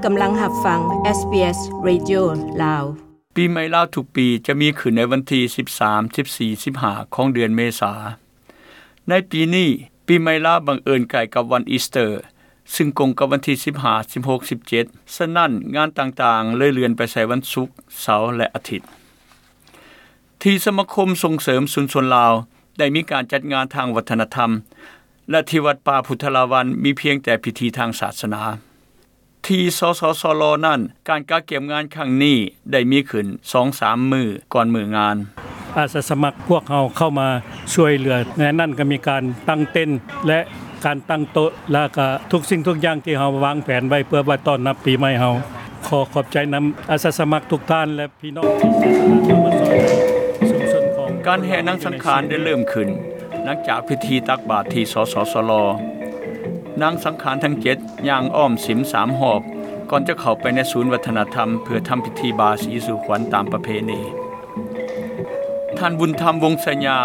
ກຳລັງຮັບຟັງ ເອສບີເອສ ເຣດິໂອ ລາວ. ປີໃໝ່ລາວທຸກປີຈະມີຂຶ້ນໃນວັນທີສິບສາມ, ສິບສີ່, ສິບຫ້າ ຂອງເດືອນເມສາ. ໃນປີນີ້, ປີໃໝ່ລາວບັງເອີນໃກ້ກັບວັນອີສເຕີ, ຊຶ່ງກົງກັບວັນທີສິບຫ້າ, ສິບຫົກ, ສິບເຈັດ, ສະນັ້ນ, ງານຕ່າງໆເລີຍເລື່ອນໄປໃສ່ວັນສຸກ, ເສົາ ແລະ ອາທິດ. ທີ່ສະມາຄົມສົ່ງເສີມຊຸມຊົນລາວໄດ້ມີການຈັດງານທາງວັດທະນະທຳ ແລະ ທີ່ວັດປ່າພຸດທະລາວັນມີພຽງແຕ່ພິທີທາງສາສະໜາ. ທີ່ ສສສລ ນັ້ນ, ການກະກຽມງານຄັ້ງນີ້ໄດ້ມີຂຶ້ນສອງສາມມື້ກ່ອນມື້ງານ. ອາສາສະໝັກພວກເຮົາເຂົ້າມາຊ່ວຍເຫຼືອ, ໃນນັ້ນກໍມີການຕັ້ງເຕັນ ແລະ ການຕັ້ງໂຕະ ແລ້ວກໍທຸກສິ່ງທຸກຢ່າງທີ່ເຮົາວາງແຜນໄວ້ເພື່ອໄວ້ຕ້ອນຮັບປີໃໝ່ເຮົາ. ຂໍຂອບໃຈນຳອາສາສະໝັກທຸກທ່ານ ແລະ ພີ່ນ້ອງທີ່ເສຍສະຫຼະເຂົ້າມາຊ່ອຍຊຸມຊົນຂອງ ການແຫ່ນາງສັງຂານໄດ້ເລີ່ມຂຶ້ນ ຫຼັງຈາກພິທີຕັກບາດທີ່ ສສສລ. ນາງສັງຂານທັງເຈັດຍ່າງອ້ອມສິມສາມຮອບ ກ່ອນຈະເຂົ້າໄປໃນສູນວັດທະນະທຳ ເພື່ອທຳພິທີບາສີສູ່ຂວັນຕາມປະເພນີ. ທ່ານບຸນທຳ ວົງໄຊຍາ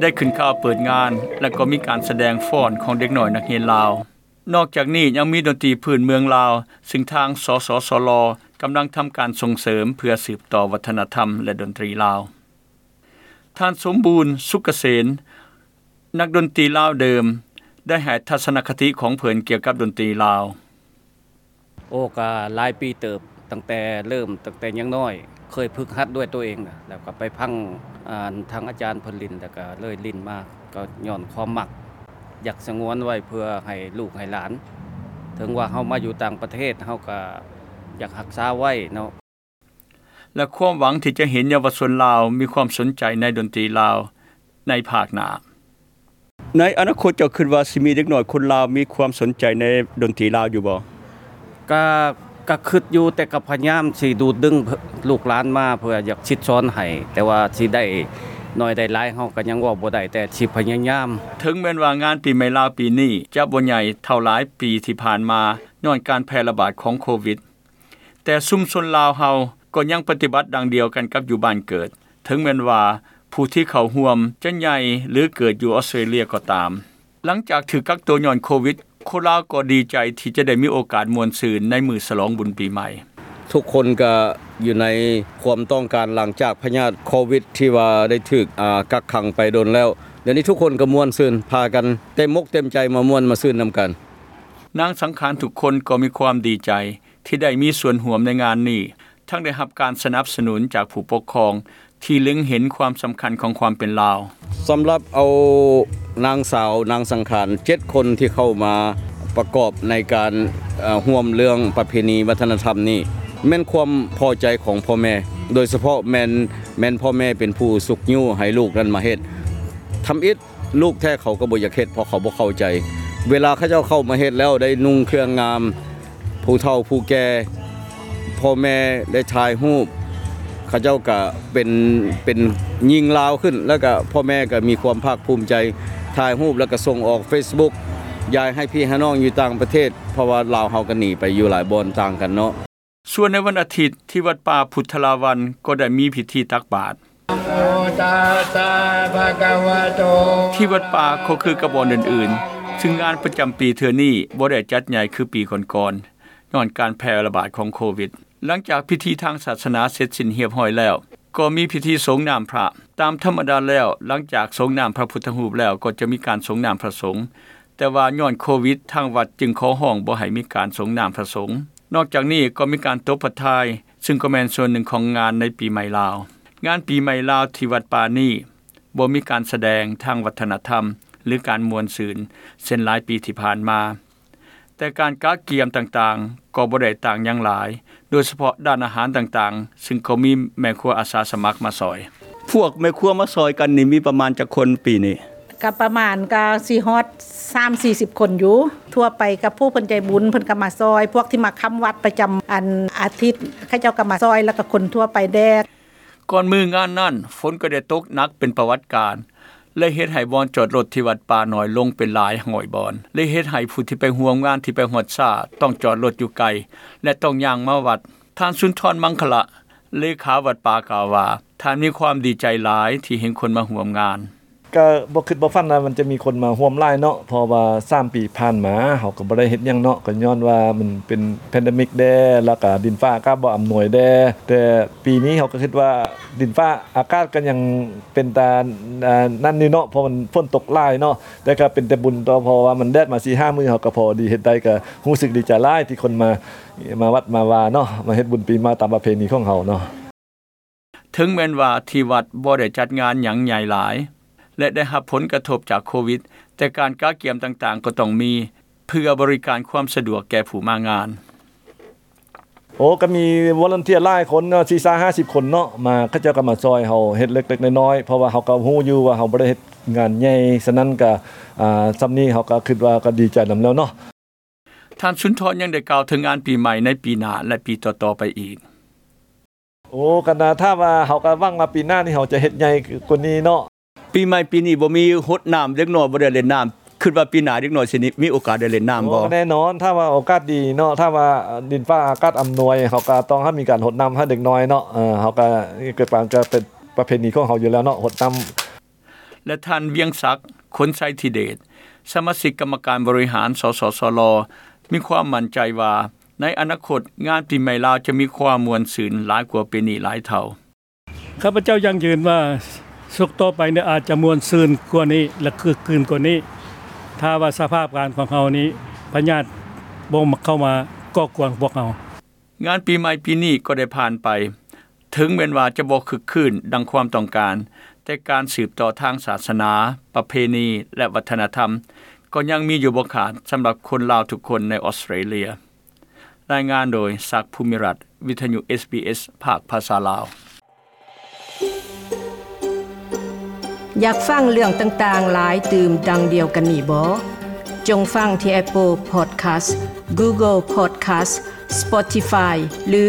ໄດ້ຂຶ້ນກ່າວເປີດງານ ແລະ ກໍມີການສະແດງຟ້ອນຂອງເດັກນ້ອຍນັກຮຽນລາວ. ນອກຈາກນີ້ຍັງມີດົນຕີພື້ນເມືອງລາວ ຊຶ່ງທາງ ສສສລ ກຳລັງທຳການສົ່ງເສີມເພື່ອສືບຕໍ່ວັດທະນະທຳ ແລະ ດົນຕີລາວ. ທ່ານ ສົມບູນ ສຸກກະເສນ ນັກດົນຕີລາວເດີມ ໄດ້ໃຫ້ທັດສະນະຄະຕິຂອງເພິ່ນກ່ຽວກັບດົນຕີລາວ. ໂອ້ ກະຫຼາຍປີເຕີບ, ຕັ້ງແຕ່ເລີ່ມ, ຕັ້ງແຕ່ຍັງນ້ອຍ, ເຄີຍຝຶກຫັດດ້ວຍຕົວເອງນະ, ແລ້ວກໍໄປຟັງ, ອ່າ, ທາງອາຈານເພິ່ນຫຼິ້ນ, ແລ້ວກໍເລີຍຫຼິ້ນມາ, ກໍຍ້ອນຄວາມມັກ, ຢາກສະຫງວນໄວ້ເພື່ອໃຫ້ລູກໃຫ້ຫຼານ. ເຖິງວ່າເຮົາມາຢູ່ຕ່າງປະເທດ, ເຮົາກໍຢາກຮັກສາໄວ້ເນາະ. ແລະ ຄວາມຫວັງທີ່ຈະເຫັນເຍົາວະຊົນລາວມີຄວາມສົນໃຈໃນດົນຕີລາວໃນພາກໜ້າ. ໃນອະນາຄົດເຈົ້າຄິດວ່າຊິມີເດັກນ້ອຍຄົນລາວມີຄວາມສົນໃຈໃນດົນຕີລາວຢູ່ບໍ່? ກະ, ກະຄິດຢູ່, ແຕ່ກໍພະຍາຍາມຊິດູດດຶງ ເພື່ອ, ລູກຫຼານມາ ເພື່ອຢາກສິດສອນໃຫ້, ແຕ່ວ່າຊິໄດ້ໜ້ອຍໄດ້ຫຼາຍເຮົາກໍຍັງເວົ້າບໍ່ໄດ້, ແຕ່ຊິພະຍາຍາມ. ເຖິງແມ່ນວ່າງານປີໃໝ່ລາວປີນີ້ຈະບໍ່ໃຫຍ່ເທົ່າຫຼາຍປີທີ່ຜ່ານມາ ຍ້ອນການແຜ່ລະບາດຂອງໂຄວິດ, ແຕ່ຊຸມຊົນລາວເຮົາກໍຍັງປະຕິບັດດັ່ງດຽວກັນກັບຢູ່ບ້ານເກີດ, ເຖິງແມ່ນວ່າຜູ້ທີ່ເຂົ້າຮ່ວມຈະໃຫຍ່ ຫຼື ເກີດຢູ່ອອສເຕຣເລຍກໍຕາມ. ຫຼັງຈາກຖືກກັກໂຕຍ້ອນໂຄວິດ, ຄົນລາວກໍດີໃຈທີ່ຈະໄດ້ມີໂອກາດມ່ວນຊື່ນໃນມື້ສະຫຼອງບຸນປີໃໝ່. ທຸກຄົນກໍຢູ່ໃນຄວາມຕ້ອງການຫຼັງຈາກພະຍາດໂຄວິດທີ່ວ່າໄດ້ຖືກ, ອາ, ກັກຂັງໄປດົນແລ້ວ. ດຽວນີ້ທຸກຄົນກໍມ່ວນຊື່ນ, ພາກັນເຕັມອົກເຕັມໃຈມາມ່ວນມາຊື່ນນຳກັນ. ນາງສັງຂານທຸກຄົນກໍມີຄວາມດີໃຈ ທີ່ໄດ້ມີສ່ວນຮ່ວມໃນງານນີ້, ທັງໄດ້ຮັບການສະໜັບສະໜູນຈາກຜູ້ປົກຄອງທີ່ເລັງເຫັນຄວາມສຳຄັນຂອງຄວາມເປັນລາວ. ສຳລັບເອົານາງສາວ ນາງສັງຂານ ເຈັດຄົນທີ່ເຂົ້າມາປະກອບໃນການ, ເອີ, ຮ່ວມເລື່ອງປະເພນີວັດທະນະທຳນີ້ ແມ່ນຄວາມພໍໃຈຂອງພໍ່ແມ່, ໂດຍສະເພາະແມ່ນ, ແມ່ນພໍ່ແມ່ເປັນຜູ້ຊຸກຍູ້ໃຫ້ລູກນັ້ນມາເຮັດ. ທຳອິດ ລູກແທ້ເຂົາກໍບໍ່ຢາກເຮັດ ເພາະເຂົາບໍ່ເຂົ້າໃຈ. ເວລາເຂົາເຈົ້າເຂົ້າມາເຮັດແລ້ວໄດ້ນຸ່ງເຄື່ອງງາມ, ຜູ້ເຖົ້າຜູ້ແກ່, ພໍ່ແມ່ໄດ້ຖ່າຍຮູບ, ເຂົາເຈົ້າກະເປັນ, ເປັນຍິງລາວຂຶ້ນ, ແລ້ວກະພໍ່ແມ່ກະມີຄວາມພາກພູມໃຈ, ຖ່າຍຮູບແລ້ວກະສົ່ງອອກເຟສບຸກ, ຢາຍໃຫ້ພີ່ໃຫ້ນ້ອງຢູ່ຕ່າງປະເທດ, ເພາະວ່າລາວເຮົາກະໜີໄປຢູ່ຫຼາຍບ່ອນຕ່າງກັນເນາະ. ສ່ວນໃນວັນອາທິດ ທີ່ວັດປ່າພຸດທະລາວັນກໍໄດ້ມີພິທີຕັກບາດ. ທີ່ວັດປ່າກໍຄືກັບບ່ອນອື່ນໆ, ຊຶ່ງງານປະຈຳປີເທື່ອນີ້ບໍ່ໄດ້ຈັດໃຫຍ່ຄືປີກ່ອນໆ, ຍ້ອນການແຜ່ລະບາດຂອງໂຄວິດ. ຫຼັງຈາກພິທີທາງສາສະໜາເສັດສິ້ນຮຽບຮ້ອຍແລ້ວ, ກໍມີພິທີສົງນ້ຳພະ. ຕາມທຳມະດາແລ້ວ, ຫຼັງຈາກສົງນ້ຳພະພຸດທະຮູບແລ້ວ, ກໍຈະມີການສົງນ້ຳພະສົງ. ແຕ່ວ່າຍ້ອນໂຄວິດ, ທາງວັດຈຶ່ງຂໍຮ້ອງບໍ່ໃຫ້ມີການສົງນ້ຳພະສົງ. ນອກຈາກນີ້ກໍມີການຕົບພະທາຍ, ຊຶ່ງກໍແມ່ນສ່ວນໜຶ່ງຂອງງານໃນປີໃໝ່ລາວ. ງານປີໃໝ່ລາວທີ່ວັດປ່ານີ້ ບໍ່ມີການສະແດງທາງວັດທະນະທຳ ຫຼື ການມ່ວນຊື່ນ ເຊັ່ນຫຼາຍປີທີ່ຜ່ານມາ. ແຕ່ການກະກຽມຕ່າງໆ ກໍບໍ່ໄດ້ຕ່າງຫຍັງຫຼາຍ, ໂດຍສະເພາະດ້ານອາຫານຕ່າງໆ, ຊຶ່ງກໍມີແມ່ຄົວອາສາສະໝັກມາຊ່ອຍ. ພວກແມ່ຄົວມາຊ່ອຍກັນນີ້ມີປະມານຈັກຄົນປີນີ້? ກະປະມານກະຊິຮອດສາມສີ່ສິບຄົນຢູ່. ທົ່ວໄປກະຜູ້ເພິ່ນໃຈບຸນເພິ່ນກະມາຊ່ອຍ, ພວກທີ່ມາຄ້ຳວັດປະຈຳອັນອາທິດ ເຂົາເຈົ້າກະມາຊ່ອຍ ແລ້ວກະຄົນທົ່ວໄປແດ່. ກ່ອນມື້ງານນັ້ນ, ຝົນກໍໄດ້ຕົກໜັກເປັນປະຫວັດການ ແລະ ເຮັດໃຫ້ບ່ອນຈອດລົດທີ່ວັດປ່າໜ້ອຍລົງເປັນຫຼາຍຮ້ອຍບ່ອນ ແລະ ເຮັດໃຫ້ຜູ້ທີ່ໄປຮ່ວມງານທີ່ໄປຮອດຊ້າຕ້ອງຈອດລົດຢູ່ໄກ ແລະ ຕ້ອງຍ່າງມາວັດ. ທ່ານ ສຸນທອນ ມັງຄະລະ ເລຂາວັດປ່າ ກ່າວວ່າ ທ່ານມີຄວາມດີໃຈຫຼາຍທີ່ເຫັນຄົນມາຮ່ວມງານ. ກໍບໍ່ຄິດບໍ່ຝັນວ່າມັນຈະມີຄົນມາຮ່ວມຫຼາຍເນາະ ເພາະວ່າສາມປີຜ່ານມາເຮົາກໍບໍ່ໄດ້ເຮັດຫຍັງເນາະ ກໍຍ້ອນວ່າມັນເປັນແພນເດມິກແດ່ ແລ້ວກໍດິນຟ້າອາກາດບໍ່ອຳນວຍແດ່ ແຕ່ປີນີ້ເຮົາກໍຄິດວ່າດິນຟ້າອາກາດກໍຍັງເປັນຕາ ອ່າ ນັ້ນຢູ່ເນາະ ເພາະມັນຝົນຕົກຫຼາຍເນາະ ແຕ່ກໍເປັນແຕ່ບຸນຕໍ່ ເພາະວ່າມັນແດດມາສີ່ຫ້າມື້ ເຮົາກໍພໍດີເຮັດໄດ້ ກໍຮູ້ສຶກດີໃຈຫຼາຍທີ່ຄົນມາ ມາວັດມາວາເນາະ ມາເຮັດບຸນປີໃໝ່ຕາມປະເພນີຂອງເຮົາເນາະ. ເຖິງແມ່ນວ່າທີ່ວັດບໍ່ໄດ້ຈັດງານຫຍັງໃຫຍ່ຫຼາຍ ແລະ ໄດ້ຮັບຜົນກະທົບຈາກໂຄວິດ, ແຕ່ການກະກຽມຕ່າງໆກໍຕ້ອງມີ ເພື່ອບໍລິການຄວາມສະດວກແກ່ຜູ້ມາງານ. ໂອ້ ກໍມີວອລັນເທຍຫຼາຍຄົນເນາະ ສີ່ສິບຫ້າສິບຄົນເນາະ ມາ ເຂົາເຈົ້າກໍມາຊ່ອຍເຮົາເຮັດເລັກໆນ້ອຍໆ ເພາະວ່າເຮົາກໍຮູ້ຢູ່ວ່າເຮົາບໍ່ໄດ້ເຮັດງານໃຫຍ່ ສະນັ້ນກໍ ອ່າ ສ່ຳນີ້ເຮົາກໍຄິດວ່າກໍດີໃຈນຳແລ້ວເນາະ. ທ່ານສຸນທອນຍັງໄດ້ກ່າວເຖິງງານປີໃໝ່ໃນປີໜ້າ ແລະ ປີຕໍ່ໆໄປອີກ. ໂອ້ ກໍນາ ຖ້າວ່າເຮົາກໍຫວັງວ່າປີໜ້ານີ້ເຮົາຈະເຮັດໃຫຍ່ກວ່ານີ້ເນາະ. ປີໃໝ່ປີນີ້ບໍ່ມີຫົດນ້ຳ ເດັກນ້ອຍບໍ່ໄດ້ຫຼິ້ນນ້ຳ ຄິດວ່າປີໜ້າເດັກນ້ອຍຊິມີໂອກາດໄດ້ຫຼິ້ນນ້ຳບໍ່? ໂອ້ ແນ່ນອນ ຖ້າວ່າໂອກາດດີເນາະ ຖ້າວ່າດິນຟ້າອາກາດອຳນວຍ ເຮົາກໍຕ້ອງໃຫ້ມີການຫົດນ້ຳໃຫ້ເດັກນ້ອຍເນາະ ເອີ ເຮົາກໍເກີດມາກໍເປັນປະເພນີຂອງເຮົາຢູ່ແລ້ວເນາະ ຫົດນ້ຳ. ແລະ ທ່ານ ວຽງສັກ ຄົນໄຊທິເດດ ສະມາຊິກກຳມະການບໍລິຫານ ສສສລ ມີຄວາມໝັ້ນໃຈວ່າ ໃນອະນາຄົດ ງານປີໃໝ່ລາວຈະມີຄວາມມ່ວນຊື່ນຫຼາຍກວ່າປີນີ້ຫຼາຍເທົ່າ. ຂ້າພະເຈົ້າຢັ້ງຢືນວ່າ ສົກຕໍ່ໄປນີ້ອາດຈະມ່ວນຊື່ນກວ່ານີ້ ແລະ ຄຶກຄື້ນກວ່ານີ້ ຖ້າວ່າສະພາບການຂອງເຮົານີ້ ພະຍາດບໍ່ເຂົ້າມາກໍ່ກວນພວກເຮົາ. ງານປີໃໝ່ປີນີ້ກໍໄດ້ຜ່ານໄປ, ເຖິງແມ່ນວ່າຈະບໍ່ຄຶກຄື້ນດັ່ງຄວາມຕ້ອງການ, ແຕ່ການສືບຕໍ່ທາງສາສະໜາ, ປະເພນີ ແລະ ວັດທະນະທຳ ກໍຍັງມີຢູ່ບໍ່ຂາດສຳລັບຄົນລາວທຸກຄົນໃນອອສເຕຣເລຍ. ລາຍງານໂດຍ ສັກ ພູມິລັດ, ວິທະຍຸ ເອສບີເອສ ພາກພາສາລາວ. ຢາກຟັງເລື່ອງຕ່າງໆຫຼາຍຕື່ມດັ່ງດຽວກັນນີ້ບໍ? ຈົ່ງຟັງທີ່ Apple Podcast, Google Podcast, Spotify ຫຼື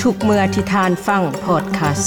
ທຸກເມື່ອທີ່ທ່ານຟັງ Podcast.